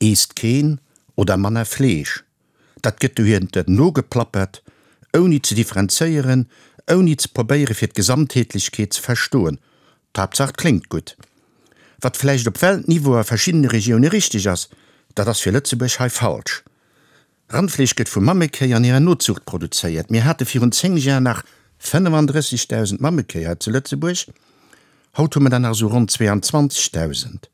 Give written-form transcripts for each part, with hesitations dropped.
Eesst keen oder manner Fleesch. Dat gëtt dohiernter nogeplappert, ouni ze differenzéieren, ouni ze probéiere fir d'Gesamtheetlechkeet ze verstoen. D'Haaptsaach 't kléngt gutt. Wat vläicht op Weltniveau a verschiddene Regioune richteg ass, dat ass fir Lëtzebuerg hei falsch. Randfleesch gëtt vu Mammekéi an hirer Nozuucht produzéiert. Mir hate virun 10 Jar nach 35.000 Mammekéi hei zu Lëtzebuerg, haut hu mer der nach esou ronn 22.000.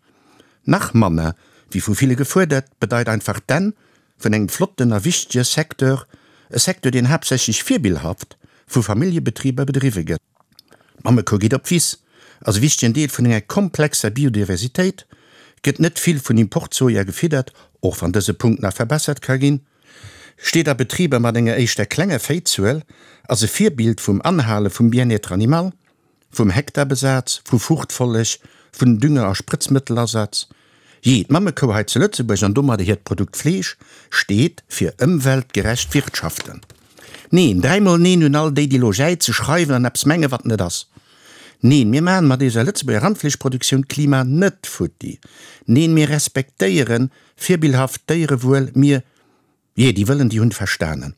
Nach manner, wéi vu ville gefuerdert, bedeit einfach d'Enn vun engem flotten a wichtege Secteur, e Secteur, deen haaptsächlech virbillhaft vu Familljebetriber bedriwwe gëtt. D'Mammekou geet op d'Wiss, ass e wichtegen Deel vun enger komplexer Biodiversitéit, gëtt net vill vun Importsoja gefiddert, och wann dëse Punkt nach verbessert ka ginn, steet a Betriber mat enger éischter klenger Véizuel, ass e Virbild vum Anhale vum Bien-être animal. Vum Hektarbesaz, vu Fruchtfolleg, vun Dünger a Sprëtzmëttelasaz. Jee, d'Mammekou hei zu Lëtzebuerg an domadder hiert Produkt Fleesch steet fir ëmweltgerecht Wirtschaften. Neen, dräimol neen un all déi, déi lo jäize, schreiwen an eppes mengen, wat net ass. Neen, mir maachen mat eiser Lëtzebuerger Randfleeschproduktioun d'Klima net futti. Neen, mir respektéieren virbillhaft d'Déierewuel, mir. Jee, déi wëllen, déi hunn verstanen.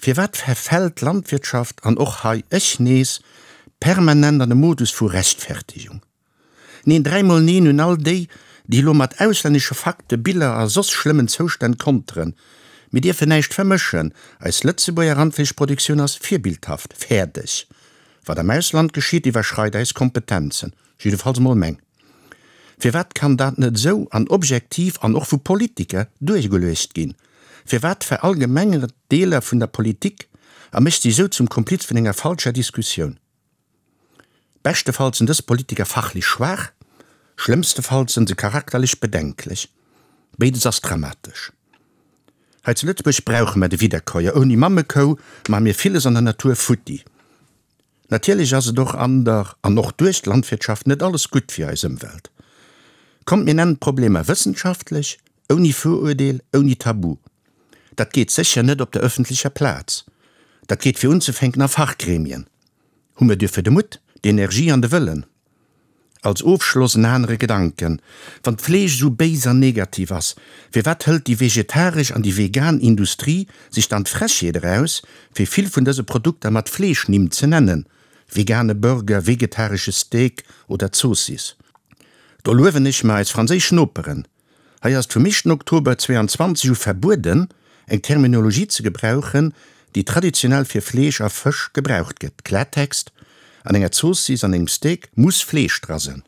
Firwat verfält d'Landwirtschaft, an och hei ech nees, permanent an e Modus vu Rechtfertigung? Neen, dräimol neen un all déi, déi elo mat auslännesche Fakten, Biller a soss schlëmmen Zoustänn konteren. Mir dierfen näischt vermëschen, eis Lëtzebuerger Randfleeschproduktioun ass virbildhaft. Fäerdeg! Wat am Ausland geschitt, iwwerschreit eis Kompetenzen, jiddefalls mol meng. Firwat kann dat net esou an objektiv an och vu Politiker duergeluecht ginn? Firwat verallgemengert Deeler vun der Politik a mécht sech esou zum Kompliz vun enger falscher Diskussioun? Beschtefalls sinn dës Politiker fachlech schwaach, schlëmmstefalls sënn se charakterlech bedenklech. Béides ass dramatesch. Hei zu Lëtzebuerg brauche mer de Wiederkäuer. Ouni Mammekou maache mir villes an der Natur futti. Natierlech ass et och an der an och duerch d'Landwirtschaft net alles gutt fir eis Ëmwelt. Kommt mir nennen d'Problemer wëssenschaftlech, ouni Viruerdeel, ouni Tabu. Dat geet sécher net op der ëffentlecher Plaz. Dat geet fir unzefänken a Fachgremien. Hu mir duerfir de Mutt, d'Energie an de Wëllen? Als Ofschloss en anere Gedanken, Wann d'Fleesch esou béis an negativ ass, firwat hëlt déi vegetaresch an déi vegan Industrie sech dann d'Frechheet eraus, fir vill vun dëse Produkter mat Fleeschnimm ze nennen, vegane Burger, vegetaresche Steak oder Zoossiss? Do luewen ech mer eis franséisch Noperen. Hei ass et vum éischten Oktober 22 u verbueden, eng Terminologie ze gebrauchen, déi traditionell fir Fleesch a Fësch gebraucht gëtt. Klartext, An enger Zoossiss, an engem Steak muss Fleesch dra sënn.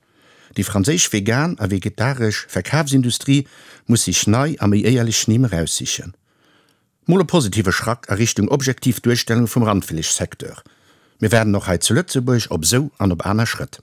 Déi franséisch vegan a vegetaresch Verkafsindustrie muss sech nei a méi éierlech Nimm eraussichen. Mol e positive Schrack a Richtung objektiv Duerstellung vum Randfleeschsecteur. Mir waarden och hei zu Lëtzebuerg op esou an op aner Schrëtt.